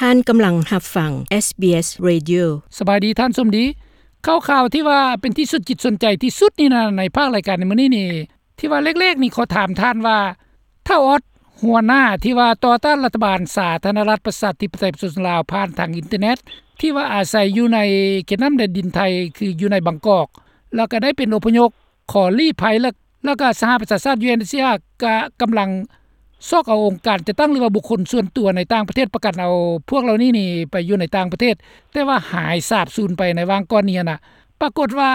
ທ່ານກຳລັງຮັບຟັງ SBS Radio. ສະບາຍດີທ່ານສົມດີ. ຂ່າວໆທີ່ວ່າເປັນທີ່ສົນຈິດສົນໃຈທີ່ສຸດນີ້ນະ ໃນພາກລາຍການໃນມື້ນີ້ນີ້ ທີ່ວ່າແລກໆນີ້ຂໍຖາມທ່ານວ່າ ທ້າວອອດ ຫົວໜ້າທີ່ວ່າຕໍ່ຕ້ານລັດຖະບານສາທາລະນະລັດປະຊາທິປະໄຕປະຊາຊົນລາວ ຜ່ານທາງອິນເຕີເນັດ ທີ່ວ່າອາໄສຢູ່ໃນເຂດນ້ຳແດນດິນໄທ ຄືຢູ່ໃນບາງກອກ ແລ້ວກໍໄດ້ເປັນອົບພະຍົບ ຂໍລີ້ໄພ ແລ້ວ ແລ້ວກະສະຫະປະຊາຊາດ UNHCR ກະກຳລັງຊອກເອົາອົງການຈັດຕັ້ງ ຫຼືວ່າບຸກຄົນສ່ວນຕົວໃນຕ່າງປະເທດ ປະກັນເອົາພວກເຫຼົ່ານີ້ນີ້ໄປຢູ່ໃນຕ່າງປະເທດ ແຕ່ວ່າຫາຍສາບສູນໄປໃນຫວ່າງກ່ອນນີ້ຫັ້ນນະ. ປາກົດວ່າ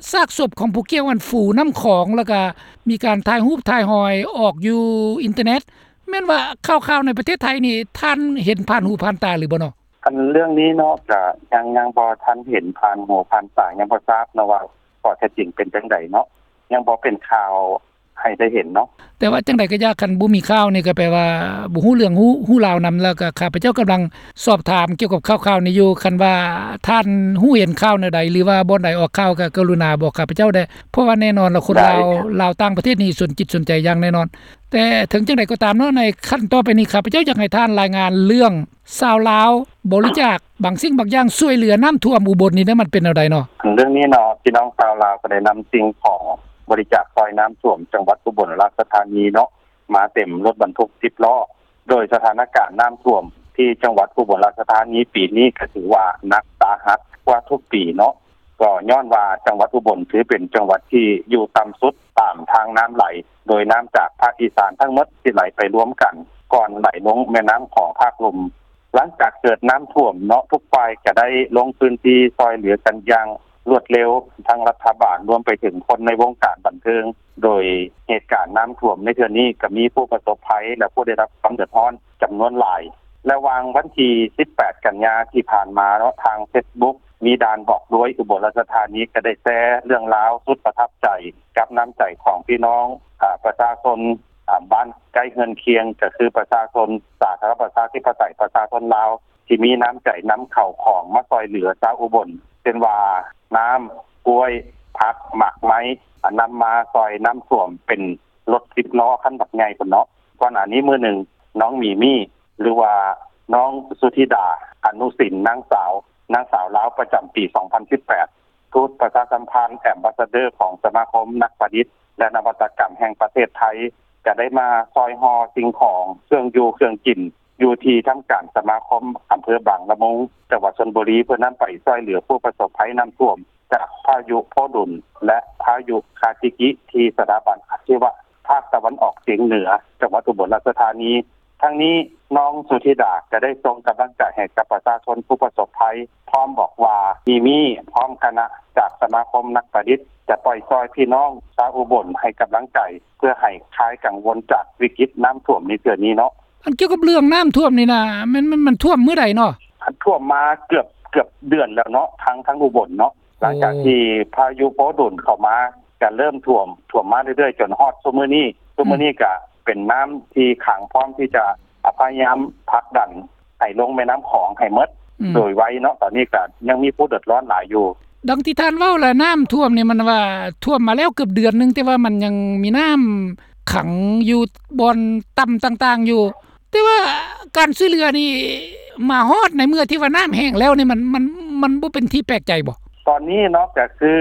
ຊາກສົບຂອງຜູ້ກ່ຽວຫັ້ນຟູນ້ຳຂອງ ແລ້ວກະມີການຖ່າຍຮູບຖ່າຍຮອຍອອກຢູ່ອິນເຕີເນັດ. ແມ່ນວ່າຂ່າວໆໃນປະເທດໄທນີ້ ທ່ານເຫັນຜ່ານຫູຜ່ານຕາຫຼືບໍ່ເນາະ? ອັນເລື່ອງນີ້ເນາະ ກະຍັງ ຍັງບໍ່ທັນເຫັນຜ່ານຫູຜ່ານຕາ ຍັງບໍ່ຊາບເນາະວ່າ ຂໍ້ເທັດຈິງເປັນຈັ່ງໃດເນາະ ຍັງບໍ່ເປັນຂ່າວໃຫ້ໄດ້ເຫັນເນາະ. ແຕ່ວ່າຈັ່ງໃດກໍຢ່າ ຄັນບໍ່ມີຂ່າວນີ້ກໍແປວ່າບໍ່ຮູ້ເລື່ອງຮູ້ ຮູ້ລາວນຳ. ແລ້ວກໍຂ້າພະເຈົ້າກຳລັງສອບຖາມກ່ຽວກັບຂ່າວໆນີ້ຢູ່ ຄັນວ່າທ່ານຮູ້ເຫັນຂ່າວແນວໃດ ຫຼືວ່າບ່ອນໃດອອກຂ່າວ ກໍກະລຸນາບອກຂ້າພະເຈົ້າແດ່ ເພາະວ່າແນ່ນອນລະຄົນລາວ ລາວຕ່າງປະເທດນີ້ສົນຈິດສົນໃຈຢ່າງແນ່ນອນ. ແຕ່ເຖິງຈັ່ງໃດກໍຕາມເນາະ ໃນຂັ້ນຕໍ່ໄປນີ້ ຂ້າພະເຈົ້າຢາກໃຫ້ທ່ານລາຍງານເລື່ອງ ຊາວລາວບໍລິຈາກບາງສິ່ງບາງຢ່າງຊ່ວຍເຫຼືອນ້ຳຖ້ວມອຸບົນນີ້ເດ້ ມັນເປັນແນວໃດເນາະ? ເລື່ອງນີ້ເນາະ ພີ່ນ້ອງຊາວລາວກໍໄດ້ນຳສິ່ງຂອງບໍລິຈາກຊ່ອຍນ້ຳຖ້ວມຈັງຫວັດອຸບົນລາຊະທານີເນາະ ມາເຕັມລົດບັນທຸກສິບລໍ້ ໂດຍສະຖານະການນ້ຳຖ້ວມທີ່ຈັງຫວັດອຸບົນລາຊະທານີປີນີ້ກໍຖືວ່າໜັກສາຫັດກວ່າທຸກປີເນາະ. ກໍຍ້ອນວ່າຈັງຫວັດອຸບົນຖືເປັນຈັງຫວັດທີ່ຢູ່ຕ່ຳສຸດຕາມທາງນ້ຳໄຫຼ ໂດຍນ້ຳຈາກພາກອີສານທັງໝົດທີ່ໄຫຼໄປລວມກັນ ກ່ອນໄຫຼລົງແມ່ນ້ຳຂອງພາກລຸ່ມ. ຫຼັງຈາກເກີດນ້ຳຖ້ວມເນາະ ທຸກຝ່າຍກະໄດ້ລົງພື້ນທີ່ຊ່ອຍເຫຼືອກັນຢ່າງລວດເລັວ ທັງລັດຖະບານ ລວມໄປເຖິງຄົນໃນວົງການບັນເທີງ. ໂດຍເຫດການນ້ຳຖ້ວມໃນເທື່ອນີ້ ກະມີຜູ້ປະສົບໄພ ແລະ ຜູ້ໄດ້ຮັບຄວາມເດືອດຮ້ອນຈຳນວນຫຼາຍ. ລະຫວ່າງວັນທີສິບແປດກັນຍາທີ່ຜ່ານມາເນາະ ທາງເຟສບຸກ ມີດ່ານບອກດ້ວຍອຸບົນລາຊະທານີ ກະໄດ້ແຊເລື່ອງລາວສຸດປະທັບໃຈ ກັບນ້ຳໃຈຂອງພີ່ນ້ອງ ອາ ປະຊາຊົນ ອາ ບ້ານໃກ້ເຮືອນຄຽງ ກໍຄືປະຊາຊົນສາທາລະນະລັດປະຊາທິປະໄຕປະຊາຊົນລາວ ທີ່ມີນ້ຳໃຈນຳເຂົ້າຂອງມາຊ່ອຍເຫຼືອຊາວອຸບົນ ເຊັ່ນວ່າ ນ້ຳ, ກ້ວຍ, ຜັກ, ໝາກໄມ້ ອາ ນຳມາຊ່ອຍນ້ຳຖ້ວມເປັນລົດສິບລໍ້ຄັນບັກໃຫຍ່ພຸ້ນເນາະ. ກ່ອນໜ້ານີ້ມື້ໜຶ່ງ ນ້ອງມີມີ ຫຼືວ່ານ້ອງສຸທິດາ ອະນຸສິນ ນາງສາວ ນາງສາວລາວປະຈຳປີສອງພັນສິບແປດ ທູດປະຊາສຳພັນ ແອມບາສເດີ ຂອງສະມາຄົມນັກປະດິດ ແລະ ນະວັດຕະກຳແຫ່ງປະເທດໄທ ກະໄດ້ມາຊ່ອຍຫໍ່ສິ່ງຂອງ ເຄື່ອງຢູ່ເຄື່ອງກິນ ຢູ່ທີ່ທຳການສະມາຄົມອຳເພີບາງລະມຸງ ຈັງຫວັດຊົນບຸຣີ ເພື່ອນຳໄປຊ່ອຍເຫຼືອຜູ້ປະສົບໄພນ້ຳຖ້ວມ ຈາກພາຍຸໂພດຸນ ແລະ ພາຍຸຄາຈິກິ ທີ່ສະຖາບັນອາຊີວະພາກຕາເວັນອອກສຽງເໜືອ ຈັງຫວັດອຸບົນລາຊະທານີ. ທັງນີ້ ນ້ອງສຸທິດາກະໄດ້ສົ່ງກຳລັງໃຈໃຫ້ກັບປະຊາຊົນຜູ້ປະສົບໄພ ພ້ອມບອກວ່າ ມີມີ ພ້ອມຄະນະຈາກສະມາຄົມນັກປະດິດ ຈະປ່ອຍຊ່ອຍພີ່ນ້ອງຊາວອຸບົນໃຫ້ກຳລັງໃຈ ເພື່ອໃຫ້ຄາຍກັງວົນຈາກວິກິດນ້ຳຖ້ວມໃນເທື່ອນີ້ເນາະ. ອັນກ່ຽວກັບເລື່ອງນ້ຳຖ້ວມນີ້ນະ ແມ່ນ ມັນ ມັນຖ້ວມມື້ໃດເນາະ? ຖ້ວມມາເກືອບ ເກືອບເດືອນແລ້ວເນາະ ທາງ ທາງອຸບົນເນາະ. ໂອ້ ຫຼັງຈາກທີ່ພາຍຸໂພດຸນເຂົ້າມາ ກະເລີ່ມຖ້ວມ ຖ້ວມມາເລື້ອຍໆ ຈົນຮອດຊຸມື້ນີ້. ຊຸມື້ນີ້ກະເປັນນ້ຳທີ່ຂັງ ພ້ອມທີ່ຈະ ອາ ພະຍາຍາມຜັກດັນໃຫ້ລົງແມ່ນ້ຳຂອງໃຫ້ໝົດ ອືມ ໂດຍໄວເນາະ. ຕອນນີ້ກະຍັງມີຜູ້ເດືອດຮ້ອນຫຼາຍຢູ່. ດັ່ງທີ່ທ່ານເວົ້າລະ ນ້ຳຖ້ວມນີ້ມັນວ່າຖ້ວມມາແລ້ວເກືອບເດືອນໜຶ່ງ ແຕ່ວ່າມັນຍັງມີນ້ຳຂັງຢູ່ບ່ອນຕ່ຳຕ່າງໆຢູ່ ແຕ່ວ່າການຊ່ວຍເຫຼືອນີ້ມາຮອດໃນເມື່ອທີ່ວ່ານ້ຳແຫ້ງແລ້ວນີ້ ມັນ ມັນ ມັນບໍ່ເປັນທີ່ແປກໃຈບໍ? ຕອນນີ້ເນາະ ກະຄື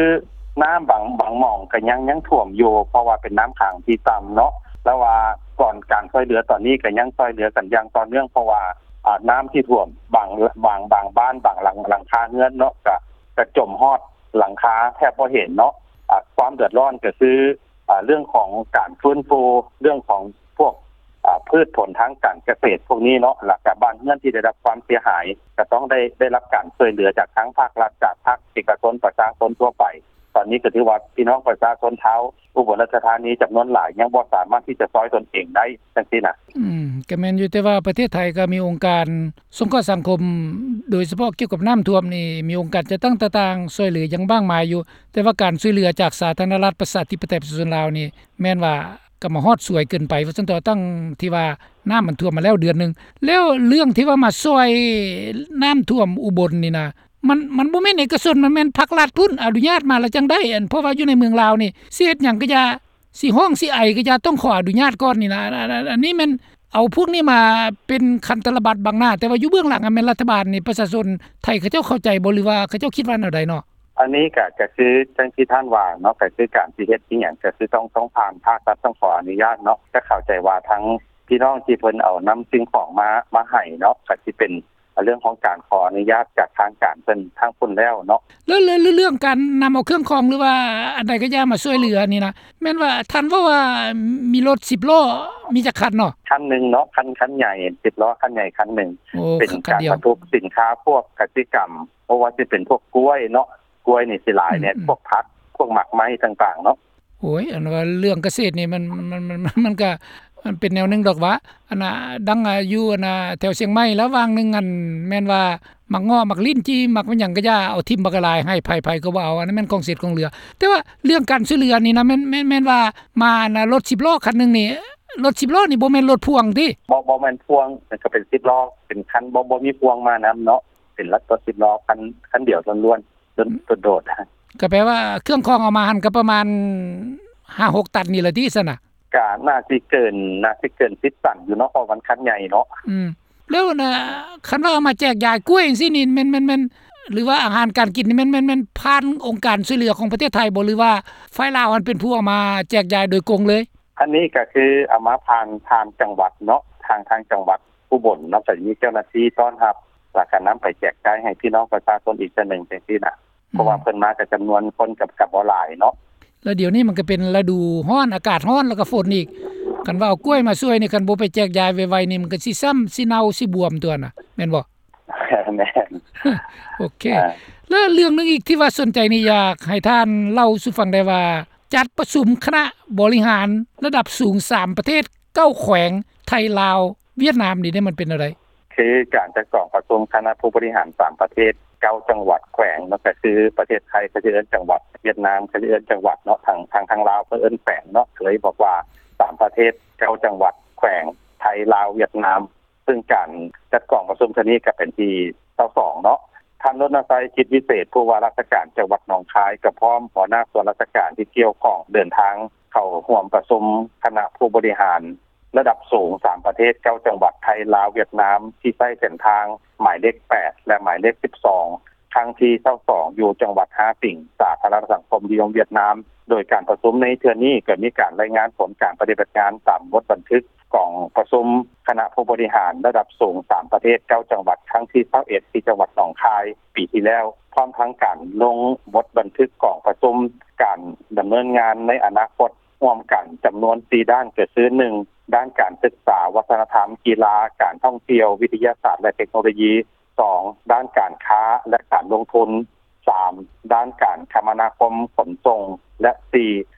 ນ້ຳບາງ ບາງໝ່ອງກະຍັງ ຍັງຖ້ວມຢູ່ ເພາະວ່າເປັນນ້ຳຂັງທີ່ຕ່ຳເນາະ. ແຕ່ວ່າກ່ອນການຊ່ວຍເຫຼືອຕອນນີ້ກະຍັງຊ່ວຍເຫຼືອກັນຢ່າງຕໍ່ເນື່ອງ ເພາະວ່າ ອາ ນ້ຳທີ່ຖ້ວມບາງ ບາງ ບາງບ້ານ ບາງຫຼັງ ຫຼັງຄາເຮືອນເນາະ ກະ ກະຈົມຮອດຫຼັງຄາແທບບໍ່ເຫັນເນາະ. ອາ ຄວາມເດືອດຮ້ອນກະຄື ອາ ເລື່ອງຂອງການຟື້ນຟູ ເລື່ອງຂອງພວກ ອາ ພືດຜົນທາງການກະເສດພວກນີ້ເນາະ ແລ້ວກະບ້ານເຮືອນທີ່ໄດ້ຮັບຄວາມເສຍຫາຍ ກະຕ້ອງໄດ້ ໄດ້ຮັບການຊ່ວຍເຫຼືອຈາກທາງພາກລັດ ຈາກພາກເອກະຊົນ ປະຊາຊົນທົ່ວໄປ. ຕອນນີ້ກະຖືວ່າພີ່ນ້ອງປະຊາຊົນຊາວອຸບົນລາຊະທານີຈຳນວນຫຼາຍ ຍັງບໍ່ສາມາດທີ່ຈະຊ່ອຍຕົນເອງໄດ້ຈັ່ງຊີ້ນະ. ອືມ ກະແມ່ນຢູ່ ແຕ່ວ່າປະເທດໄທກະມີອົງການສົງເຄາະສັງຄົມ ໂດຍສະເພາະກ່ຽວກັບນ້ຳຖ້ວມນີ້ ມີອົງການຈັດຕັ້ງຕ່າງໆ ຊ່ວຍເຫຼືອຢ່າງມາກມາຍຢູ່ ແຕ່ວ່າການຊ່ວຍເຫຼືອຈາກສາທາລະນະລັດປະຊາທິປະໄຕປະຊາຊົນລາວນີ້ ແມ່ນວ່າ ກໍມາຮອດສວຍເກີນໄປວ່າຊັ້ນເຖາະ ຕັ້ງທີ່ວ່ານ້ຳມັນຖ້ວມມາແລ້ວເດືອນໜຶ່ງ. ແລ້ວເລື່ອງທີ່ວ່າມາຊ່ອຍນ້ຳຖ້ວມອຸບົນນີ້ນະ ມັນ ມັນບໍ່ແມ່ນເອກະຊົນ ມັນແມ່ນພາກລັດພຸ້ນອະນຸຍາດມາລະຈັ່ງໄດ້. ອັນ ເພາະວ່າຢູ່ໃນເມືອງລາວນີ້ ຊິເຮັດຫຍັງກະຢ່າ ຊິຮ້ອງຊິໄອກະຢ່າ ຕ້ອງຂໍອະນຸຍາດກ່ອນນີ້ນະ. ອັນ ອັນ ອັນ ອັນນີ້ແມ່ນ ເອົາພວກນີ້ມາເປັນຄັນຕະລະບັດບັງໜ້າ ແຕ່ວ່າຢູ່ເບື້ອງຫຼັງຫັ້ນແມ່ນລັດຖະບານນີ້ ປະຊາຊົນໄທເຂົາເຈົ້າເຂົ້າໃຈບໍ່ ຫຼືວ່າເຂົາເຈົ້າຄິດວ່າແນວໃດເນາະ? ອັນນີ້ກໍ ກໍຄືຈັ່ງທີ່ທ່ານວ່າເນາະ ກໍຄືການຊິເຮັດອີ່ຫຍັງ ກໍຄືຕ້ອງ ຕ້ອງຜ່ານພາກລັດ ຕ້ອງຂໍອະນຸຍາດເນາະ. ກໍເຂົ້າໃຈວ່າທາງພີ່ນ້ອງທີ່ເພິ່ນເອົານຳສິ່ງຂອງມາ ມາໃຫ້ເນາະ ກໍຊິເປັນເລື່ອງຂອງການຂໍອະນຸຍາດຈາກທາງການເພິ່ນທາງພຸ້ນແລ້ວເນາະ. ແລ້ວ ແລ້ວເລື່ອງການນຳເອົາເຄື່ອງຂອງ ຫຼືວ່າອັນໃດກໍຢ່າມາຊ່ວຍເຫຼືອນີ້ນະ ແມ່ນວ່າທ່ານເວົ້າວ່າມີລົດສິບລໍ້ ມີຈັກຄັນເນາະ? ຄັນໜຶ່ງເນາະ ຄັນ ຄັນໃຫຍ່ ສິບລໍ້ຄັນໃຫຍ່ຄັນໜຶ່ງ. ໂອ້ ເປັນການບັນທຸກສິນຄ້າພວກກະສິກຳ ບໍ່ວ່າຊິເປັນພວກກ້ວຍເນາະ ກ້ວຍນີ້ຊິຫຼາຍແດ່ ອືມໆ ພວກຜັກ ພວກໝາກໄມ້ຕ່າງໆເນາະ. ໂອ້ຍ ອັນວ່າເລື່ອງກະເສດນີ້ມັນ ມັນ ມັນ ມັນ ມັນກະ ມັນເປັນແນວໜຶ່ງດອກຫວາ ອັນນ່າ ດັ່ງ ອາ ຢູ່ ອັນນ່າ ແຖວຊຽງໃໝ່ລະຫວ່າງໜຶ່ງ ອັນ ແມ່ນວ່າໝາກເງາະ ໝາກລິ້ນຈີ່ ໝາກຫຍັງກະຢ່າ ເອົາຖິ້ມບັກຫຼາຍ ໃຫ້ໃຜໆກໍບໍ່ເອົາ ອັນນັ້ນແມ່ນຂອງເສດຂອງເຫຼືອ. ແຕ່ວ່າເລື່ອງການຊ່ວຍເຫຼືອນີ້ນະ ແມ່ນ ແມ່ນ ແມ່ນວ່າມາ ອັນນ່າ ລົດສິບລໍ້ຄັນໜຶ່ງນີ້ ລົດສິບລໍ້ນີ້ບໍ່ແມ່ນລົດພ່ວງຕິ? ບໍ່ ບໍ່ແມ່ນພ່ວງ ມັນກະເປັນສິບລໍ້ ເປັນຄັນ ບໍ່ ບໍ່ມີພ່ວງມານຳເນາະ ເປັນລົດສິບລໍ້ຄັນ ຄັນດຽວລ້ວນໆ ໂດດໆ. ກະແປວ່າເຄື່ອງຂອງເອົາມາຫັ້ນກະປະມານຫ້າຫົກຕັນນີ້ລະຕິຊັ້ນນະ? ກະໜ້າຊິເກີນ ໜ້າຊິເກີນສິບຕັນຢູ່ເນາະ ເພາະມັນຄັນໃຫຍ່ເນາະ. ອືມ ແລ້ວນະ ຄັນວ່າເອົາມາແຈກຢາຍກ້ວຍຈັ່ງຊີ້ນີ້ ແມ່ນ ແມ່ນ ແມ່ນ ຫຼືວ່າອາຫານການກິນນີ້ ແມ່ນ ແມ່ນ ແມ່ນຜ່ານອົງການຊ່ວຍເຫຼືອຂອງປະເທດໄທບໍ່ ຫຼືວ່າຝ່າຍລາວຫັ້ນເປັນຜູ້ເອົາມາແຈກຢາຍໂດຍກົງເລີຍ? ອັນນີ້ກະຄືເອົາມາຜ່ານ ຜ່ານຈັງຫວັດເນາະ ທາງ ທາງຈັງຫວັດອຸບົນເນາະ ກະມີເຈົ້າໜ້າທີ່ຕ້ອນຮັບ ລະກະນຳໄປແຈກຈ່າຍໃຫ້ພີ່ນ້ອງປະຊາຊົນອີກເທື່ອໜຶ່ງຈັ່ງຊີ້ນະ. ເພາະວ່າເພິ່ນມາກະຈຳນວນຄົນກະ ກະບໍ່ຫຼາຍເນາະ. ແລ້ວດຽວນີ້ມັນກະເປັນລະດູຮ້ອນ ອາກາດຮ້ອນ ລະກະຝົນອີກ ຄັນວ່າເອົາກ້ວຍມາຊ່ວຍນີ້ ຄັນບໍ່ໄປແຈກຢາຍໄວໆນີ້ ມັນກະຊິຊ້ຳ ຊິເນົ່າ ຊິບວມຕົວນະ ແມ່ນບໍ່? ແມ່ນ. ໂອເຄ ແລ້ວເລື່ອງໜຶ່ງອີກທີ່ວ່າສົນໃຈນີ້ ຢາກໃຫ້ທ່ານເລົ່າສູ່ຟັງໄດ້ວ່າ ຈັດປະຊຸມຄະນະບໍລິຫານລະດັບສູງສາມປະເທດ ເກົ້າແຂວງ ໄທ ລາວ ຫວຽດນາມນີ້ເດ້ ມັນເປັນແນວໃດ? ຄືການຈັດກອງປະຊຸມຄະນະຜູ້ບໍລິຫານສາມປະເທດ ເກົ້າຈັງຫວັດແຂວງເນາະ ກະຄືປະເທດໄທເຂົາຊິເອີ້ນຈັງຫວັດ ຫວຽດນາມເຂົາຊິເອີ້ນຈັງຫວັດເນາະ ທາງ ທາງ ທາງລາວເພິ່ນເອີ້ນແຂວງເນາະ ເລີຍບອກວ່າສາມປະເທດ ເກົ້າຈັງຫວັດແຂວງ ໄທ ລາວ ຫວຽດນາມ. ເຊິ່ງການຈັດກອງປະຊຸມເທື່ອນີ້ກະເປັນທີຊາວສອງເນາະ. ທ່ານ ລົນນະໄຊ ຈິດວິເສດ ຜູ້ວ່າລາຊະການຈັງຫວັດໜອງຄາຍ ກະພ້ອມຫົວໜ້າສ່ວນລາຊະການທີ່ກ່ຽວຂ້ອງເດີນທາງເຂົ້າຮ່ວມປະຊຸມຄະນະຜູ້ບໍລິຫານ ລະດັບສູງສາມປະເທດ ເກົ້າຈັງຫວັດ ໄທ ລາວ ຫວຽດນາມ ທີ່ໃຊ້ເສັ້ນທາງໝາຍເລກແປດ ແລະ ໝາຍເລກສິບສອງ ຄັ້ງທີຊາວສອງ ຢູ່ຈັງຫວັດຮາຕິງ ສາທາລະນະສັງຄົມນິຍົມຫວຽດນາມ. ໂດຍການປະຊຸມໃນເທື່ອນີ້ ກະມີການລາຍງານຜົນການປະຕິບັດງານຕາມບົດບັນທຶກກອງປະຊຸມຄະນະຜູ້ບໍລິຫານລະດັບສູງສາມປະເທດ ເກົ້າຈັງຫວັດ ຄັ້ງທີຊາວເອັດ ທີ່ຈັງຫວັດໜອງຄາຍປີທີ່ແລ້ວ ພ້ອມທັງການລົງບົດບັນທຶກກອງປະຊຸມການດຳເນີນງານໃນອະນາຄົດ ຮ່ວມກັນຈຳນວນສີ່ດ້ານ ກະຄື ໜຶ່ງ ດ້ານການສຶກສາ ວັດທະນະທຳ ກິລາ ການທ່ອງທ່ຽວ ວິທະຍາສາດ ແລະ ເທັກໂນໂລຢີ, ສອງ ດ້ານການຄ້າ ແລະ ການລົງທຶນ, ສາມ ດ້ານການຄະມະນາຄົມຂົນສົ່ງ ແລະ ສີ່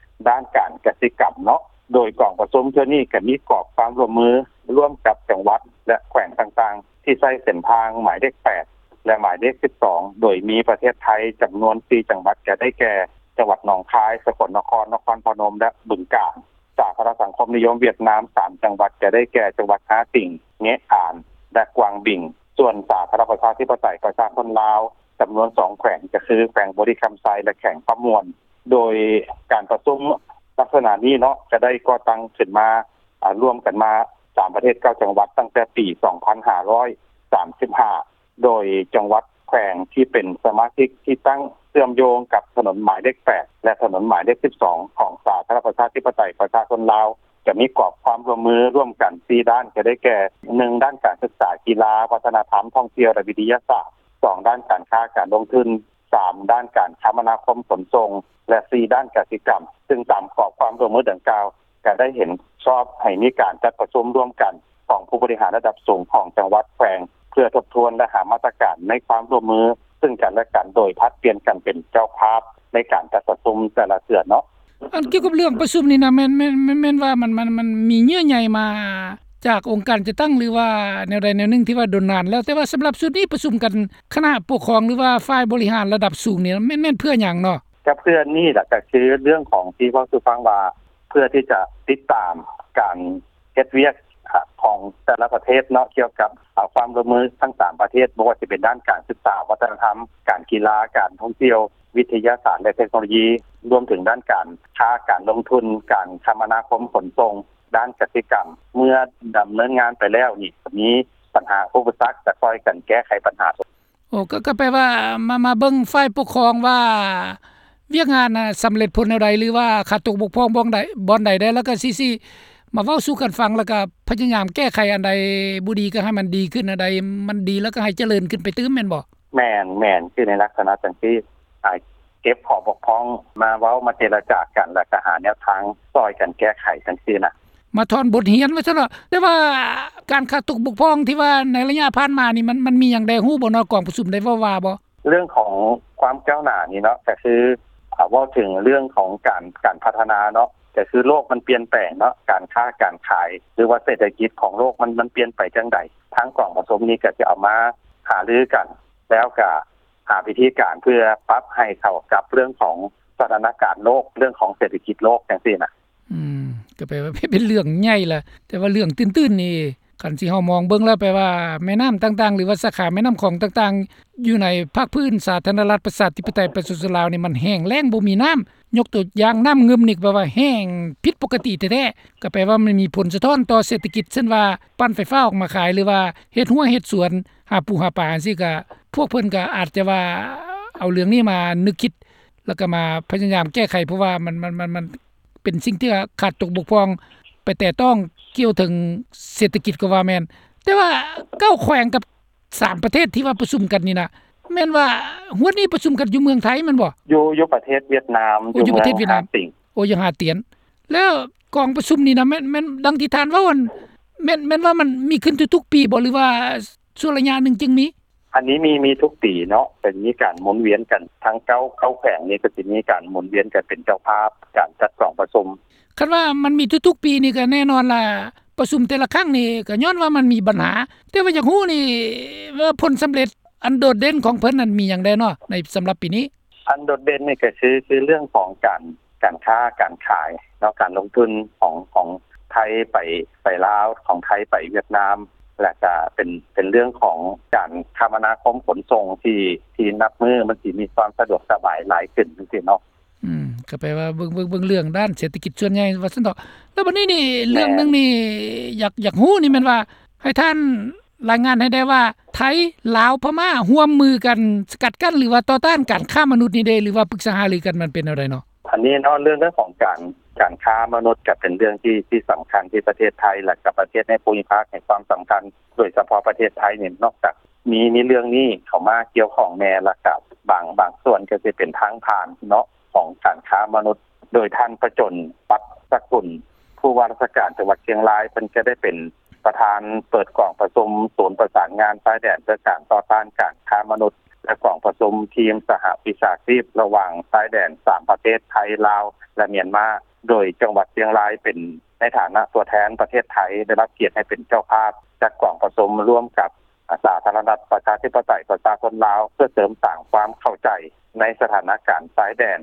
ດ້ານການກະສິກຳເນາະ. ໂດຍກອງປະຊຸມເທື່ອນີ້ກະມີກອບຄວາມຮ່ວມມືຮ່ວມກັບຈັງຫວັດ ແລະ ແຂວງຕ່າງໆ ທີ່ໃຊ້ເສັ້ນທາງໝາຍເລກແປດ ແລະ ໝາຍເລກສິບສອງ ໂດຍມີປະເທດໄທຈຳນວນສີ່ຈັງຫວັດ ກະໄດ້ແກ່ ຈັງຫວັດໜອງຄາຍ, ສະກົນນະຄອນ, ນະຄອນພະນົມ ແລະ ບຶງການ. ສາທາລະນະສັງຄົມນິຍົມຫວຽດນາມ ສາມ ຈັງຫວັດ ກະໄດ້ແກ່ ຈັງຫວັດຮາຕິງ, ເງະອານ ແລະ ກວາງບິງ. ສ່ວນສາທາລະນະລັດປະຊາທິປະໄຕປະຊາຊົນລາວ ຈຳນວນສອງແຂວງ ກະຄື ແຂວງບໍລິຄຳໄຊ ແລະ ແຂວງຄຳມ່ວນ. ໂດຍການປະຊຸມລັກສະນະນີ້ເນາະ ກະໄດ້ກໍ່ຕັ້ງຂຶ້ນມາ ອາ ລວມກັນມາ ສາມປະເທດ ເກົ້າຈັງຫວັດ ຕັ້ງແຕ່ປີສອງພັນຫ້າຮ້ອຍສາມສິບຫ້າ ໂດຍຈັງຫວັດແຂວງທີ່ເປັນສະມາຊິກທີ່ຕັ້ງເຊື່ອມໂຍງກັບຖະໜົນໝາຍເລກແປດ ແລະ ຖະໜົນໝາຍເລກສິບສອງ ຂອງສາທາລະນະລັດປະຊາທິປະໄຕປະຊາຊົນລາວ ຈະມີກອບຄວາມຮ່ວມມືຮ່ວມກັນສີ່ດ້ານ ກະໄດ້ແກ່ ໜຶ່ງ ດ້ານການສຶກສາ, ກິລາ, ວັດທະນະທຳ, ທ່ອງທ່ຽວ ແລະ ວິທະຍາສາດ, ສອງ ດ້ານການຄ້າການລົງທຶນ, ສາມ ດ້ານການຄະມະນາຄົມຂົນສົ່ງ ແລະ ສີ່ ດ້ານກະສິກຳ. ຊຶ່ງຕາມກອບຄວາມຮ່ວມມືດັ່ງກ່າວ ກະໄດ້ເຫັນຊອບໃຫ້ມີການຈັດປະຊຸມຮ່ວມກັນຂອງຜູ້ບໍລິຫານລະດັບສູງຂອງຈັງຫວັດແຂວງ ເພື່ອທົບທວນ ແລະ ຫາມາດຕະການໃນຄວາມຮ່ວມມືຊຶ່ງກັນ ແລະ ກັນ ໂດຍຜັດປ່ຽນກັນເປັນເຈົ້າພາບໃນການຈັດປະຊຸມແຕ່ລະເທື່ອເນາະ. ອັນກ່ຽວກັບເລື່ອງປະຊຸມນີ້ນະ ແມ່ນ ແມ່ນ ແມ່ນ ແມ່ນວ່າມັນ ມັນ ມັນມີເຍື່ອໃຍມາຈາກອົງການຈັດຕັ້ງ ຫຼືວ່າແນວໃດແນວໜຶ່ງທີ່ວ່າດົນນານແລ້ວ ແຕ່ວ່າສຳລັບຊຸດນີ້ປະຊຸມກັນຄະນະປົກຄອງ ຫຼືວ່າຝ່າຍບໍລິຫານລະດັບສູງນີ້ ແມ່ນ ແມ່ນເພື່ອຫຍັງເນາະ? ກະເພື່ອນີ້ລະ ກະຄືເລື່ອງຂອງທີ່ເວົ້າສູ່ຟັງວ່າ ເພື່ອທີ່ຈະຕິດຕາມການເຮັດວຽກ ອາ ຂອງແຕ່ລະປະເທດເນາະ ກ່ຽວກັບ ອາ ຄວາມຮ່ວມມືທັງສາມປະເທດ ບໍ່ວ່າຊິເປັນດ້ານການສຶກສາ, ວັດທະນະທຳ, ການກິລາ, ການທ່ອງທ່ຽວ, ວິທະຍາສາດ ແລະ ເທັກໂນໂລຢີ, ລວມເຖິງດ້ານການຄ້າ, ການລົງທຶນ, ການຄະມະນາຄົມ, ຂົນສົ່ງ ດ້ານກະສິກຳ ເມື່ອດຳເນີນງານໄປແລ້ວນີ້ ກໍມີບັນຫາອຸປະສັກ ກໍຊ່ອຍກັນແກ້ໄຂບັນຫາ. ໂອ້ ກໍ ກໍແປວ່າ ມາ ມາເບິ່ງຝ່າຍປົກຄອງວ່າ ວຽກງານນະສຳເລັດຜົນແນວໃດ ຫຼືວ່າຂາດຕົກບົກຜ່ອງບ່ອນໃດ ບ່ອນໃດແດ່ ແລ້ວກໍຊິ ຊິມາເວົ້າສູ່ກັນຟັງ ແລ້ວກໍພະຍາຍາມແກ້ໄຂອັນໃດບໍ່ດີ ກໍໃຫ້ມັນດີຂຶ້ນ ອັນໃດມັນດີ ແລ້ວກໍໃຫ້ຈະເລີນຂຶ້ນໄປຕື່ມ ແມ່ນບໍ່? ແມ່ນ ແມ່ນ ຄືໃນລັກສະນະຈັ່ງຊີ້ ອາ ເກັບຂໍ້ບົກຜ່ອງມາເວົ້າ ມາເຈລະຈາກັນ ແລ້ວກໍຫາແນວທາງຊ່ອຍກັນແກ້ໄຂຈັ່ງຊີ້ນະ. ມາຖອນບົດຮຽນວ່າຊັ້ນເນາະ. ແຕ່ວ່າການຂາດຕົກບົກຜ່ອງທີ່ວ່າໃນໄລຍະຜ່ານມານີ້ ມັນ ມັນມີຫຍັງແດ່ ຮູ້ບໍ່ເນາະ? ກອງປະຊຸມໄດ້ເວົ້າວ່າບໍ່? ເລື່ອງຂອງຄວາມກ້າວໜ້ານີ້ເນາະ ກໍຄື ອາ ເວົ້າເຖິງເລື່ອງຂອງການ ການພັດທະນາເນາະ ກໍຄືໂລກມັນປ່ຽນແປງເນາະ ການຄ້າການຂາຍ ຫຼືວ່າເສດຖະກິດຂອງໂລກມັນ ມັນປ່ຽນໄປຈັ່ງໃດ ທາງກອງປະຊຸມນີ້ກໍຈະເອົາມາຫາລືກັນ ແລ້ວກໍຫາວິທີການເພື່ອປັບໃຫ້ເຂົ້າກັບເລື່ອງຂອງສະຖານະການໂລກ ເລື່ອງຂອງເສດຖະກິດໂລກຈັ່ງຊີ້ນະ. ອືມ ກໍແປວ່າເປັນເລື່ອງໃຫຍ່ລະ ແຕ່ວ່າເລື່ອງຕື້ນໆນີ້ ຄັນຊິເຮົາມອງເບິ່ງແລ້ວ ແປວ່າແມ່ນ້ຳຕ່າງໆ ຫຼືວ່າສາຂາແມ່ນ້ຳຂອງຕ່າງໆ ຢູ່ໃນພາກພື້ນສາທາລະນະລັດ ປະຊາທິປະໄຕ ປະຊາຊົນລາວນີ້ ມັນແຫ້ງແລ້ງ ບໍ່ມີນ້ຳ. ຍົກຕົວຢ່າງນ້ຳງື່ມນີ້ ແປວ່າແຫ້ງຜິດປົກກະຕິແທ້ໆ ກໍແປວ່າມັນມີຜົນສະທ້ອນຕໍ່ເສດຖະກິດ ເຊັ່ນວ່າປັ່ນໄຟຟ້າອອກມາຂາຍ ຫຼືວ່າເຮັດຮົ້ວເຮັດສວນ ຫາປູຫາປາຈັ່ງຊີ້ ກໍພວກເພິ່ນກໍອາດຈະວ່າເອົາເລື່ອງນີ້ມານຶກຄິດ ແລ້ວກໍມາພະຍາຍາມແກ້ໄຂ ເພາະວ່າມັນ ມັນ ມັນ ມັນ ເປັນສິ່ງທີ່ຂາດຕົກບົກຜ່ອງໄປແຕະຕ້ອງກ່ຽວເຖິງເສດຖະກິດກໍວ່າແມ່ນ. ແຕ່ວ່າເກົ້າແຂວງກັບສາມປະເທດທີ່ວ່າປະຊຸມກັນນີ້ນະ ແມ່ນວ່າຮວດນີ້ປະຊຸມກັນຢູ່ເມືອງໄທແມ່ນບໍ່? ຢູ່ ຢູ່ປະເທດຫວຽດນາມ ໂອ້ ຢູ່ເມືອງ ຢູ່ປະເທດຫວຽດນາມ ຫາຕຽນ. ໂອ້ ຢູ່ຫາຕຽນ. ແລ້ວກອງປະຊຸມນີ້ນະ ແມ່ນ ແມ່ນດັ່ງທີ່ທ່ານເວົ້າຫັ້ນ ແມ່ນ ແມ່ນວ່າມັນມີຂຶ້ນທຸກໆປີບໍ່ ຫຼືວ່າຊົ່ວໄລຍະໜຶ່ງຈຶ່ງມີ? ອັນນີ້ມີ ມີທຸກປີເນາະ ເປັນ ມີການໝູນວຽນກັນ ທັງເກົ້າ ເກົ້າແຂວງນີ້ກໍຊິມີການໝູນວຽນກັນເປັນເຈົ້າພາບການຈັດກອງປະຊຸມ. ຄັນວ່າມັນມີທຸກໆປີນີ້ ກໍແນ່ນອນລະ ປະຊຸມແຕ່ລະຄັ້ງນີ້ ກໍຍ້ອນວ່າມັນມີບັນຫາ. ແຕ່ວ່າຢາກຮູ້ນີ້ວ່າຜົນສຳເລັດອັນໂດດເດັ່ນຂອງເພິ່ນນັ້ນມີຫຍັງແດ່ເນາະ ໃນສຳລັບປີນີ້? ອັນໂດດເດັ່ນນີ້ກໍຄື ຄືເລື່ອງຂອງການ ການຄ້າການຂາຍເນາະ ການລົງທຶນຂອງ ຂອງໄທໄປ ໄປລາວ ຂອງໄທໄປຫວຽດນາມ ແລະກະເປັນ ເປັນເລື່ອງຂອງການຄະມະນາຄົມຂົນສົ່ງທີ່ ທີ່ນັບມື້ມັນຊິມີຄວາມສະດວກສະບາຍຫຼາຍຂຶ້ນຈັ່ງຊີ້ເນາະ. ອືມ ກໍແປວ່າເບິ່ງ ເບິ່ງ ເບິ່ງເລື່ອງດ້ານເສດຖະກິດສ່ວນໃຫຍ່ວ່າຊັ້ນເຖາະ. ແລ້ວບັດນີ້ນີ້ ແມ່ນ ເລື່ອງໜຶ່ງນີ້ ຢາກ ຢາກຮູ້ນີ້ແມ່ນວ່າ ໃຫ້ທ່ານລາຍງານໃຫ້ແດ່ວ່າ ໄທ ລາວ ພະມ້າ ຮ່ວມມືກັນສະກັດກັ້ນ ຫຼືວ່າຕໍ່ຕ້ານການຄ້າມະນຸດນີ້ເດ ຫຼືວ່າປຶກສາຫາລືກັນ ມັນເປັນແນວໃດເນາະ? ອັນນີ້ເນາະ ເລື່ອງ ເລື່ອງຂອງການ ການຄ້າມະນຸດກໍເປັນເລື່ອງທີ່ ທີ່ສຳຄັນທີ່ປະເທດໄທ ແລະ ກັບປະເທດໃນພູມິພາກໃຫ້ຄວາມສຳຄັນ ໂດຍສະເພາະປະເທດໄທນີ້ ນອກຈາກມີ ມີເລື່ອງນີ້ເຂົ້າມາກ່ຽວຂ້ອງແດ່ ແລ້ວກໍບາງ ບາງສ່ວນກໍຊິເປັນທາງຜ່ານເນາະ ຂອງການຄ້າມະນຸດ ໂດຍທ່ານ ປະຈົນ ປັດສະກຸນ ຜູ້ວ່າລາຊະການຈັງຫວັດຊຽງລາຍ ເພິ່ນກໍໄດ້ເປັນປະທານເປີດກອງປະຊຸມສູນປະສານງານຊາຍແດນເພື່ອການຕໍ່ຕ້ານການຄ້າມະນຸດ ແລະ ກອງປະຊຸມທີມສະຫະວິຊາຊີບລະຫວ່າງຊາຍແດນສາມປະເທດ ໄທ ລາວ ແລະ ມຽນມາ ໂດຍຈັງຫວັດຊຽງລາຍເປັນໃນຖານະຕົວແທນປະເທດໄທ ໄດ້ຮັບກຽດໃຫ້ເປັນເຈົ້າພາບຈັດກອງປະຊຸມຮ່ວມກັບ ສາທາລະນະລັດ ປະຊາທິປະໄຕ ປະຊາຊົນລາວ ເພື່ອເສີມສ້າງຄວາມເຂົ້າໃຈໃນສະຖານະການຊາຍແດນ,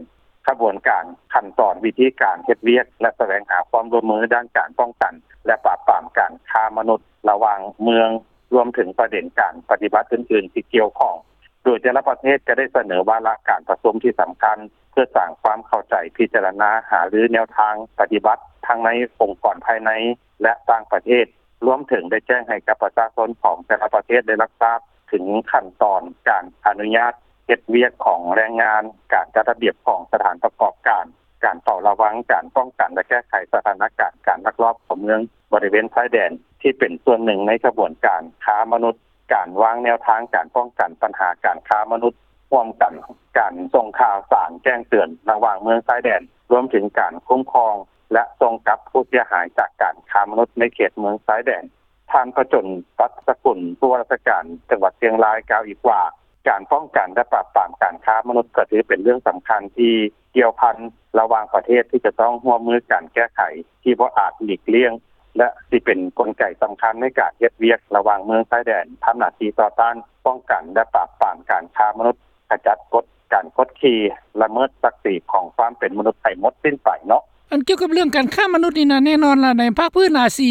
ຂະບວນການ, ຂັ້ນຕອນ, ວິທີການເຮັດວຽກ ແລະ ສະແຫວງຫາຄວາມຮ່ວມມືດ້ານການປ້ອງກັນ ແລະ ປາບປາມການຄ້າມະນຸດລະຫວ່າງເມືອງ, ລວມເຖິງປະເດັນການປະຕິບັດອື່ນໆທີ່ກ່ຽວຂ້ອງ, ໂດຍແຕ່ລະປະເທດຈະໄດ້ສະເໜີວາລະການປະຊຸມທີ່ສຳຄັນ ເພື່ອສ້າງຄວາມເຂົ້າໃຈ, ພິຈາລະນາ, ຫາລືແນວທາງປະຕິບັດ ທັງໃນອົງກອນພາຍໃນ ແລະ ຕ່າງປະເທດ. ລວມເຖິງໄດ້ແຈ້ງໃຫ້ກັບປະຊາຊົນຂອງແຕ່ລະປະເທດໄດ້ຮັບຊາບເຖິງຂັ້ນຕອນການອະນຸຍາດເຮັດວຽກຂອງແຮງງານ, ການຈັດລະບຽບຂອງສະຖານປະກອບການ, ການເຝົ້າລະວັງ, ການປ້ອງກັນ ແລະ ແກ້ໄຂສະຖານະການການລັກລອບເຂົ້າເມືອງບໍລິເວນຊາຍແດນ ທີ່ເປັນສ່ວນໜຶ່ງໃນຂະບວນການຄ້າມະນຸດ, ການວາງແນວທາງການປ້ອງກັນບັນຫາການຄ້າມະນຸດຮ່ວມກັນ, ການສົ່ງຂ່າວສານແຈ້ງເຕືອນລະຫວ່າງເມືອງຊາຍແດນ, ລວມເຖິງການຄຸ້ມຄອງ ແລະ ສົ່ງກັບຜູ້ເສຍຫາຍຈາກການຄ້າມະນຸດໃນເຂດເມືອງຊາຍແດນ. ທ່ານ ປະຈົນ ປັດສະກຸນ ຜູ້ວ່າລາຊະການຈັງຫວັດຊຽງລາຍ ກ່າວອີກວ່າ ການປ້ອງກັນ ແລະ ປາບປາມການຄ້າມະນຸດ ກໍຖືເປັນເລື່ອງສຳຄັນທີ່ກ່ຽວພັນລະຫວ່າງປະເທດ ທີ່ຈະຕ້ອງຮ່ວມມືກັນແກ້ໄຂ ທີ່ບໍ່ອາດຫຼີກລ່ຽງ ແລະ ຊິເປັນກົນໄກສຳຄັນໃນການເຮັດວຽກລະຫວ່າງເມືອງຊາຍແດນ, ທຳໜ້າທີ່ຕໍ່ຕ້ານ, ປ້ອງກັນ ແລະ ປາບປາມການຄ້າມະນຸດ, ຂະຈັດກົດ ການກົດຂີ່, ລະເມີດສັກສີຂອງຄວາມເປັນມະນຸດໃຫ້ໝົດສິ້ນໄປເນາະ. ອັນກ່ຽວກັບເລື່ອງການຄ້າມະນຸດນີ້ນະ ແນ່ນອນລະ ໃນພາກພື້ນອາຊີ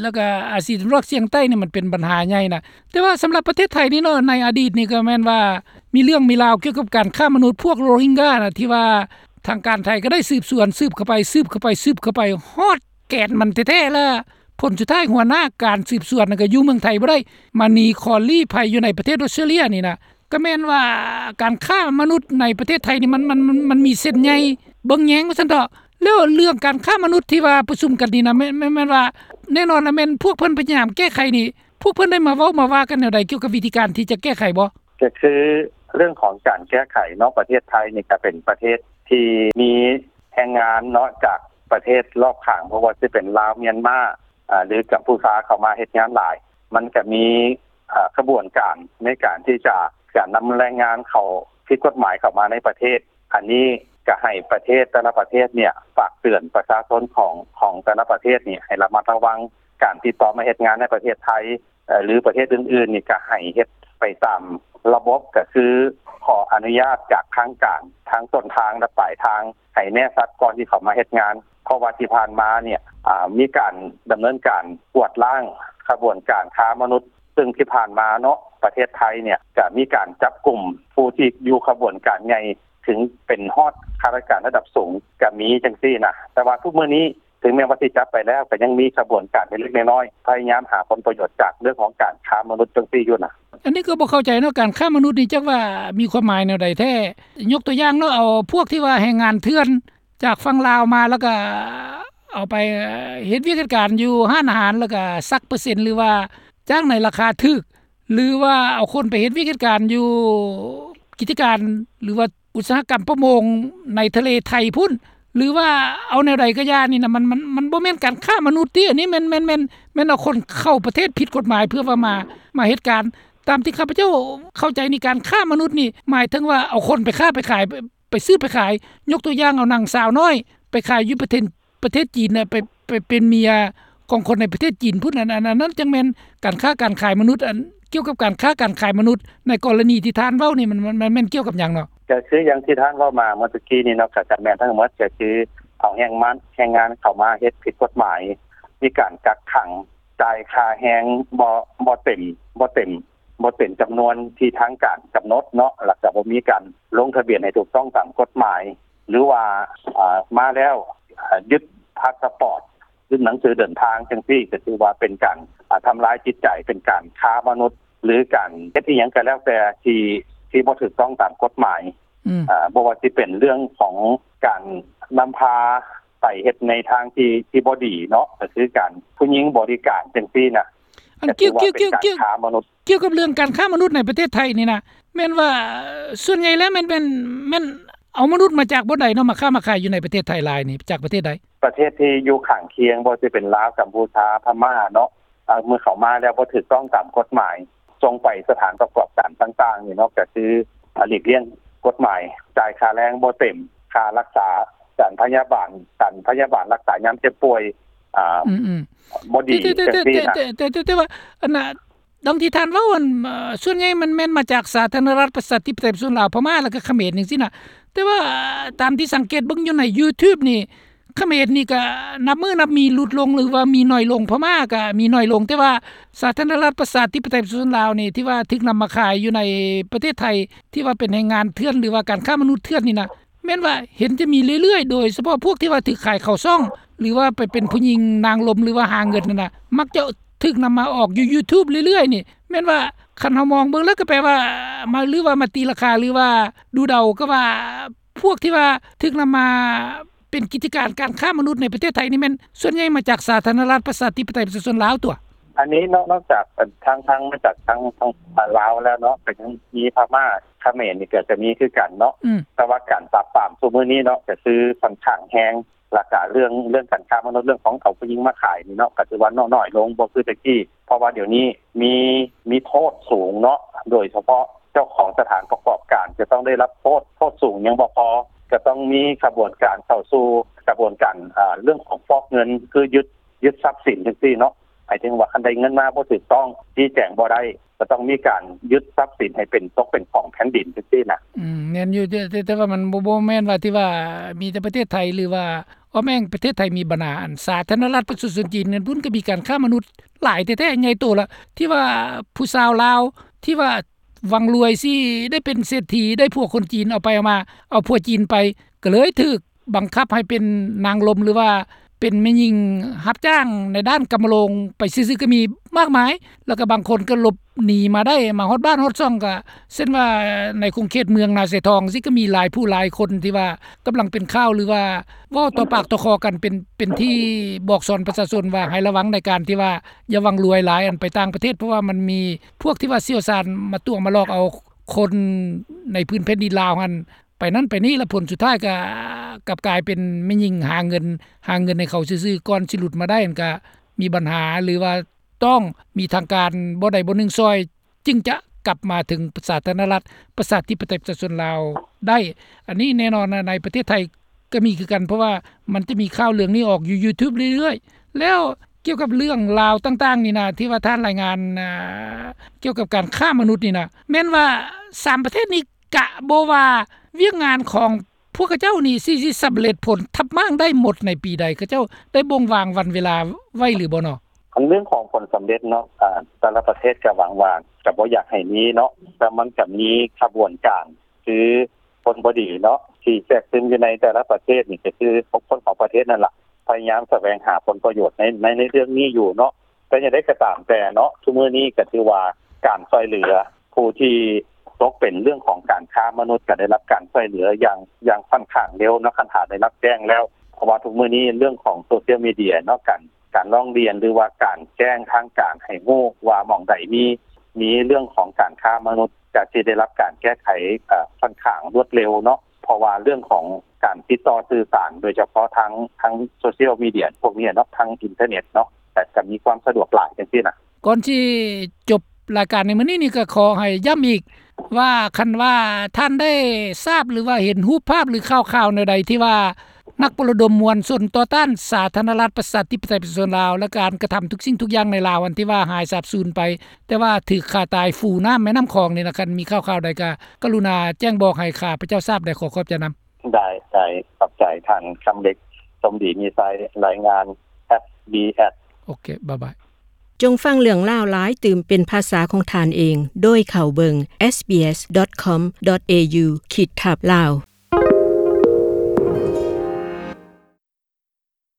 ແລ້ວກະອາຊີຕາເວັນອອກສຽງໃຕ້ນີ້ ມັນເປັນບັນຫາໃຫຍ່ນະ. ແຕ່ວ່າສຳລັບປະເທດໄທນີ້ເນາະ ໃນອະດີດນີ້ກໍແມ່ນວ່າມີເລື່ອງມີລາວກ່ຽວກັບການຄ້າມະນຸດພວກໂຣຮິງການະ ທີ່ວ່າທາງການໄທກໍໄດ້ສືບສວນ ສືບເຂົ້າໄປ ສືບເຂົ້າໄປ ສືບເຂົ້າໄປ ຮອດ ແກ່ນມັນແທ້ໆ ແລະ ຜົນສຸດທ້າຍຫົວໜ້າການສືບສວນນັ້ນກໍຢູ່ເມືອງໄທບໍ່ໄດ້ ມາໜີຂໍລີ້ໄພຢູ່ໃນປະເທດອົດສະຕຣາເລຍນີ້ນະ ກໍແມ່ນວ່າການຄ້າມະນຸດໃນປະເທດໄທນີ້ ມັນ ມັນ ມັນ ມັນມີເສັ້ນໃຍເບິ່ງແຍງວ່າຊັ້ນເຖາະ. ແລ້ວເລື່ອງການຄ້າມະນຸດທີ່ວ່າປະຊຸມກັນນີ້ນະ ແມ່ນ ແມ່ນ ແມ່ນວ່າ ແນ່ນອນລະແມ່ນພວກເພິ່ນພະຍາຍາມແກ້ໄຂນີ້ ພວກເພິ່ນໄດ້ມາເວົ້າມາວ່າກັນແນວໃດ ກ່ຽວກັບວິທີການທີ່ຈະແກ້ໄຂບໍ່? ກໍຄືເລື່ອງຂອງການແກ້ໄຂເນາະ ປະເທດໄທນີ້ກໍເປັນປະເທດທີ່ມີແຮງງານເນາະ ຈາກປະເທດລອບຂ້າງ ບໍ່ວ່າຊິເປັນລາວ ມຽນມາ ອາ ຫຼື ກຳພູຊາ ເຂົ້າມາເຮັດງານຫຼາຍ ມັນກໍມີ ອາ ຂະບວນການໃນການທີ່ຈະ ຈະນຳແຮງງານເຂົ້າ ຜິດກົດໝາຍເຂົ້າມາໃນປະເທດ. ອັນນີ້ກໍໃຫ້ປະເທດແຕ່ລະປະເທດເນ່ຍ ຝາກເຕືອນປະຊາຊົນຂອງ ຂອງແຕ່ລະປະເທດນີ້ ໃຫ້ລະມັດລະວັງການຕິດຕໍ່ມາເຮັດງານໃນປະເທດໄທ ເອີ ຫຼື ປະເທດອື່ນໆນີ້ ກໍໃຫ້ເຮັດໄປຕາມລະບົບ ກໍຄືຂໍອະນຸຍາດຈາກທາງການ ທັງຕົ້ນທາງ ແລະ ປາຍທາງ ໃຫ້ແນ່ຊັດກ່ອນທີ່ເຂົ້າມາເຮັດງານ. ເພາະວ່າທີ່ຜ່ານມາເນ່ຍ ອາ ມີການດຳເນີນການກວາດລ້າງຂະບວນການຄ້າມະນຸດ ຊຶ່ງທີ່ຜ່ານມາເນາະ ປະເທດໄທເນ່ຍ ກະມີການຈັບກຸມຜູ້ທີ່ຢູ່ຂະບວນການໃຫຍ່ ເຖິງເປັນຮອດຂ້າລາຊະການລະດັບສູງກະມີຈັ່ງຊີ້ນະ. ແຕ່ວ່າທຸກມື້ນີ້ ເຖິງແມ່ນວ່າຊິຈັບໄປແລ້ວ ກະຍັງມີຂະບວນການເລັກໆນ້ອຍໆ ພະຍາຍາມຫາຜົນປະໂຫຍດຈາກເລື່ອງຂອງການຄ້າມະນຸດຈັ່ງຊີ້ຢູ່ນະ. ອັນນີ້ກໍບໍ່ເຂົ້າໃຈເນາະ ການຄ້າມະນຸດນີ້ຈັກວ່າມີຄວາມໝາຍແນວໃດແທ້? ຍົກຕົວຢ່າງເນາະ ເອົາພວກທີ່ວ່າແຮງງານເຖື່ອນ ຈາກຝັ່ງລາວມາ ແລ້ວກໍເອົາໄປເຮັດວຽກເຮັດການຢູ່ຮ້ານອາຫານ ແລ້ວກໍສັກເປີເຊັນ ຫຼືວ່າຈ້າງໃນລາຄາຖືກ ຫຼືວ່າເອົາຄົນໄປເຮັດວຽກເຮັດການຢູ່ກິດຈະການ ຫຼືວ່າອຸດສາຫະກຳປະມົງໃນທະເລໄທພຸ້ນ ຫຼືວ່າເອົາແນວໃດກໍຢ່ານີ້ນະ ມັນ ມັນ ມັນບໍ່ແມ່ນການຄ້າມະນຸດຕິ? ອັນນີ້ແມ່ນ ແມ່ນ ແມ່ນ ແມ່ນເອົາຄົນເຂົ້າປະເທດຜິດກົດໝາຍ ເພື່ອວ່າມາ ມາເຮັດການ. ຕາມທີ່ຂ້າພະເຈົ້າເຂົ້າໃຈນີ້ ການຄ້າມະນຸດນີ້ ໝາຍເຖິງວ່າເອົາຄົນໄປຄ້າໄປຂາຍ ໄປຊື້ໄປຂາຍ ຍົກຕົວຢ່າງເອົານາງສາວນ້ອຍໄປຂາຍຢູ່ປະເທດ ປະເທດຈີນນະ ໄປ ໄປເປັນເມຍຂອງຄົນໃນປະເທດຈີນພຸ້ນ ອັນ ອັນ ອັນນັ້ນຈັ່ງແມ່ນການຄ້າການຂາຍມະນຸດ. ອັນ ກ່ຽວກັບການຄ້າການຂາຍມະນຸດໃນກໍລະນີທີ່ທ່ານເວົ້ານີ້ ມັນ ມັນ ມັນແມ່ນກ່ຽວກັບຫຍັງເນາະ? ກໍຄືຢ່າງທີ່ທ່ານເວົ້າມາເມື່ອຕະກີ້ນີ້ເນາະ ກໍຈະແມ່ນທັງໝົດ ກໍຄືເອົາແຮງງານ ແຮງງານເຂົ້າມາເຮັດຜິດກົດໝາຍ ມີການກັກຂັງ ຈ່າຍຄ່າແຮງບໍ່ ບໍ່ເຕັມ ບໍ່ເຕັມ ບໍ່ເຕັມຈຳນວນທີ່ທາງການກຳນົດເນາະ ແລ້ວກໍບໍ່ມີການລົງທະບຽນໃຫ້ຖືກຕ້ອງຕາມກົດໝາຍ ຫຼືວ່າ ອາ ມາແລ້ວ ອາ ຍຶດພາສປອດ ຫຼື ໜັງສືເດີນທາງຈັ່ງຊີ້ ກໍຖືວ່າເປັນການ ອາ ທຳລາຍຈິດໃຈ ເປັນການຄ້າມະນຸດ ຫຼື ການເຮັດອີ່ຫຍັງກໍແລ້ວແຕ່ທີ່ ທີ່ບໍ່ຖືກຕ້ອງຕາມກົດໝາຍ. ອືມ ອາ ບໍ່ວ່າຊິເປັນເລື່ອງຂອງການນຳພາໄປເຮັດໃນທາງທີ່ ທີ່ບໍ່ດີເນາະ ກໍຄືການຜູ້ຍິງບໍລິການຈັ່ງຊີ້ນະ. ອັນ ກໍຖືວ່າເປັນການຄ້າມະນຸດ. ກ່ຽວກັບເລື່ອງການຄ້າມະນຸດໃນປະເທດໄທນີ້ນະ ແມ່ນວ່າສ່ວນໃຫຍ່ແລ້ວແມ່ນ ແມ່ນ ແມ່ນເອົາມະນຸດມາຈາກບ່ອນໃດເນາະ ມາຄ້າມາຂາຍຢູ່ໃນປະເທດໄທຫຼາຍນີ້ ຈາກປະເທດໃດ? ປະເທດທີ່ຢູ່ຂ້າງຄຽງ ບໍ່ວ່າຊິເປັນລາວ ກຳພູຊາ ພະມ້າເນາະ ເມື່ອເຂົ້າມາແລ້ວບໍ່ຖືກຕ້ອງຕາມກົດໝາຍ ສົ່ງໄປສະຖານປະກອບການຕ່າງໆນີ້ເນາະ ກໍຄື ອາ ຫຼີກລ່ຽງກົດໝາຍ ຈ່າຍຄ່າແຮງບໍ່ເຕັມ ຄ່າຮັກສາ ການພະຍາບານ ການພະຍາບານລັກສາຍາມເຈັບປ່ວຍ ອາ ອືມໆ ບໍ່ດີ ແຕ່ ແຕ່ ແຕ່ ແຕ່ ແຕ່ ແຕ່ ແຕ່ ແຕ່ ແຕ່ ແຕ່ວ່າ ອັນນ່າ ດັ່ງທີ່ທ່ານເວົ້າ ອັນ ເອີ ສ່ວນໃຫຍ່ມັນແມ່ນມາຈາກສາທາລະນະລັດປະຊາທິປະໄຕປະຊາຊົນລາວ ພະມ້າ ແລ້ວກໍຂະເໝນຈັ່ງຊີ້ນະ. ແຕ່ວ່າຕາມທີ່ສັງເກດເບິ່ງຢູ່ໃນຢູທູບນີ້ ຂະເໝນນີ້ກໍນັບມື້ນັບມີຫຼຸດລົງ ຫຼືວ່າມີໜ້ອຍລົງ, ພະມ້າກໍມີໜ້ອຍລົງ, ແຕ່ວ່າສາທາລະນະລັດປະຊາທິປະໄຕປະຊາຊົນລາວນີ້ ທີ່ວ່າຖືກນຳມາຂາຍຢູ່ໃນປະເທດໄທ ທີ່ວ່າເປັນແຮງງານເຖື່ອນ ຫຼືວ່າການຄ້າມະນຸດເຖື່ອນນີ້ນະ ແມ່ນວ່າເຫັນຈະມີເລື້ອຍໆ ໂດຍສະເພາະພວກທີ່ວ່າຖືກຂາຍເຂົ້າຊ່ອງ ຫຼືວ່າໄປເປັນຜູ້ຍິງນາງລົມ ຫຼືວ່າຫາເງິນນັ້ນນະ ມັກຈະຖືກນຳມາອອກຢູ່ຢູທູບເລື້ອຍໆນີ້ ແມ່ນວ່າຄັນເຮົາມອງເບິ່ງແລ້ວກໍແປວ່າມາ ຫຼືວ່າມາຕີລາຄາ ຫຼືວ່າດູເດົາກໍວ່າ ພວກທີ່ວ່າຖືກນຳມາເປັນກິດຈະການການຄ້າມະນຸດໃນປະເທດໄທນີ້ ແມ່ນສ່ວນໃຫຍ່ມາຈາກສາທາລະນະລັດປະຊາທິປະໄຕປະຊາຊົນລາວຕົວະ. ອັນນີ້ນອກ ນອກຈາກທາງ ທາງ ມາຈາກທາງ ທາງລາວແລ້ວເນາະ ກໍຍັງມີພະມ້າ ຂະເໝນນີ້ກໍຈະມີຄືກັນເນາະ ອືມ ແຕ່ວ່າການປາບປາມຊຸມື້ນີ້ເນາະ ກໍຄືຂ້ອນຂ້າງແຮງ ແລ້ວກະເລື່ອງ ເລື່ອງການຄ້າມະນຸດ ເລື່ອງຂອງເອົາຜູ້ຍິງມາຂາຍນີ້ເນາະ ກໍຖືວ່າ ເນາະ ໜ້ອຍລົງ ບໍ່ຄືແຕ່ກີ້ ເພາະວ່າດຽວນີ້ມີ ມີໂທດສູງເນາະ ໂດຍສະເພາະເຈົ້າຂອງສະຖານປະກອບການຈະຕ້ອງໄດ້ຮັບໂທດ ໂທດສູງຍັງບໍ່ພໍ ກໍຕ້ອງມີຂະບວນການເຂົ້າສູ່ຂະບວນການ ອາ ເລື່ອງຂອງຟອກເງິນ ຄືຍຶດ ຍຶດຊັບສິນຈັ່ງຊີ້ເນາະ ໝາຍເຖິງວ່າຄັນໄດ້ເງິນມາບໍ່ຖືກຕ້ອງ ຊີ້ແຈງບໍ່ໄດ້ ກໍຕ້ອງມີການຍຶດຊັບສິນໃຫ້ເປັນ ຕົກເປັນຂອງແຜ່ນດິນຈັ່ງຊີ້ນະ. ອືມ ແມ່ນຢູ່ ແຕ່ ແຕ່ ແຕ່ວ່າມັນບໍ່ ບໍ່ແມ່ນວ່າທີ່ວ່າມີແຕ່ປະເທດໄທ ຫຼືວ່າ ອ້ອມແອ້ງປະເທດໄທມີບັນຫາ ອັນສາທາລະນະລັດປະຊາຊົນຈີນນັ້ນພຸ້ນ ກໍມີການຄ້າມະນຸດຫຼາຍແທ້ໆ ໃຫຍ່ໂຕລະ ທີ່ວ່າຜູ້ສາວລາວ ທີ່ວ່າຫວັງລວຍຊິໄດ້ເປັນເສດຖີ ໄດ້ຜົວຄົນຈີນ ເອົາໄປເອົາມາ ເອົາຜົວຈີນໄປ ກໍເລີຍຖືກ ບັງຄັບໃຫ້ເປັນນາງລົມ ຫຼືວ່າ ເປັນແມ່ຍິງຮັບຈ້າງໃນດ້ານກຳມະໂລງໄປຊື່ໆ ກໍມີມາກມາຍ ແລ້ວກໍບາງຄົນກໍຫຼົບໜີມາໄດ້ ມາຮອດບ້ານຮອດຊ່ອງ ກໍເຊັ່ນວ່າໃນຂົງເຂດເມືອງນາຊາຍທອງ ຊິກໍມີຫຼາຍຜູ້ຫຼາຍຄົນທີ່ວ່າກຳລັງເປັນຂ່າວ ຫຼືວ່າເວົ້າຕໍ່ປາກຕໍ່ຄໍກັນ ເປັນ ເປັນທີ່ບອກສອນປະຊາຊົນວ່າໃຫ້ລະວັງໃນການທີ່ວ່າຢ່າຫວັງລວຍຫຼາຍ ອັນໄປຕ່າງປະເທດ ເພາະວ່າມັນມີພວກທີ່ວ່າຊ່ຽວຊານມາຕົວະມາຫຼອກເອົາຄົນໃນພື້ນແຜ່ນດິນລາວຫັ້ນ ໄປນັ້ນໄປນີ້ ແລ້ວຜົນສຸດທ້າຍກໍກັບກາຍເປັນແມ່ຍິງຫາເງິນ ຫາເງິນໃຫ້ເຂົາຊື່ໆ ກ່ອນຊິຫຼຸດມາໄດ້ຫັ້ນ ກໍມີບັນຫາ ຫຼືວ່າຕ້ອງມີທາງການບໍ່ໃດບໍ່ໜຶ່ງຊ່ອຍ ຈຶ່ງຈະກັບມາເຖິງສາທາລະນະລັດ ປະຊາທິປະໄຕ ປະຊາຊົນລາວໄດ້. ອັນນີ້ແນ່ນອນນະ ໃນປະເທດໄທກໍມີຄືກັນ ເພາະວ່າມັນຈະມີຂ່າວເລື່ອງນີ້ອອກຢູ່ຢູທູບເລື້ອຍໆ. ແລ້ວກ່ຽວກັບເລື່ອງລາວຕ່າງໆນີ້ນະ ທີ່ວ່າທ່ານລາຍງານ ອ່າ ກ່ຽວກັບການຄ້າມະນຸດນີ້ນະ ແມ່ນວ່າສາມປະເທດນີ້ ກະບໍ່ວ່າວຽກງານຂອງພວກເຂົາເຈົ້ານີ້ຊິ ຊິສຳເລັດຜົນທັບມ້າງໄດ້ໝົດໃນປີໃດ ເຂົາເຈົ້າໄດ້ບົ່ງວາງວັນເວລາໄວ້ຫຼືບໍ່ເນາະ? ອັນເລື່ອງຂອງຜົນສຳເລັດເນາະ ອາ ແຕ່ລະປະເທດກະຫວັງວ່າກະບໍ່ຢາກໃຫ້ມີເນາະ ແຕ່ມັນກະມີຂະບວນການ ຄືຄົນບໍ່ດີເນາະ ທີ່ແຊກຊຶມຢູ່ໃນແຕ່ລະປະເທດນີ້ ກະຄືຄົນຂອງປະເທດນັ້ນລະ ພະຍາຍາມສະແຫວງຫາຜົນປະໂຫຍດໃນ ໃນ ໃນເລື່ອງນີ້ຢູ່ເນາະ. ແຕ່ຢ່າງໃດກໍຕາມແຕ່ເນາະ ທຸກມື້ນີ້ກໍຖືວ່າການຊ່ວຍເຫຼືອຜູ້ທີ່ຕົກເປັນເລື່ອງຂອງການຄ້າມະນຸດ ກໍໄດ້ຮັບການຊ່ວຍເຫຼືອຢ່າງ ຢ່າງຂ້ອນຂ້າງເລັວເນາະ ຄັນຖ້າໄດ້ຮັບແຈ້ງແລ້ວ ເພາະວ່າທຸກມື້ນີ້ເລື່ອງຂອງໂຊຊຽວມີເດຍເນາະ ການ ການຮ້ອງຮຽນ ຫຼືວ່າການແຈ້ງທາງການໃຫ້ຮູ້ວ່າໝ່ອງໃດມີ ມີເລື່ອງຂອງການຄ້າມະນຸດ ກໍຊິໄດ້ຮັບການແກ້ໄຂ ເອີ ຂ້ອນຂ້າງລວດເລັວເນາະ ເພາະວ່າເລື່ອງຂອງການຕິດຕໍ່ສື່ສານ ໂດຍສະເພາະທາງ ທາງໂຊຊຽວມີເດຍພວກນີ້ເນາະ ທາງອິນເຕີເນັດເນາະ ແຕ່ກໍມີຄວາມສະດວກຫຼາຍຈັ່ງຊີ້ນະ. ກ່ອນຊິຈົບລາຍການໃນມື້ນີ້ນີ້ ກໍຂໍໃຫ້ຢ້ຳອີກວ່າ ຄັນວ່າທ່ານໄດ້ຊາບ ຫຼືວ່າເຫັນຮູບພາບ ຫຼືຂ່າວໆແນວໃດ ທີ່ວ່ານັກປະລະດົມມວນຊົນຕໍ່ຕ້ານສາທາລະນະລັດ ປະຊາທິປະໄຕ ປະຊາຊົນລາວ ແລະ ການກະທຳທຸກສິ່ງທຸກຢ່າງໃນລາວ ອັນທີ່ວ່າຫາຍສາບສູນໄປ ແຕ່ວ່າຖືກຂ້າຕາຍຟູນ້ຳແມ່ນ້ຳຂອງນີ້ນະ ຄັນມີຂ່າວໆໃດກໍກະລຸນາແຈ້ງບອກໃຫ້ຂ້າພະເຈົ້າຊາບໄດ້ ຂໍຂອບໃຈນຳ. ໄດ້ ໄດ້ ຂອບໃຈທ່ານຄຳເລັກ ສົມດີມີໄຊ ລາຍງານ ເອັສບີເອັສ. ໂອເຄ ບາຍບາຍ. ຈົ່ງຟັງເລື່ອງລາວຫຼາຍຕື່ມເປັນພາສາຂອງທ່ານເອງ ໂດຍເຂົ້າເບິ່ງ ເອສບີເອສດອດຄອມດອດເອຢູ ຂີດທັບ ລາວ.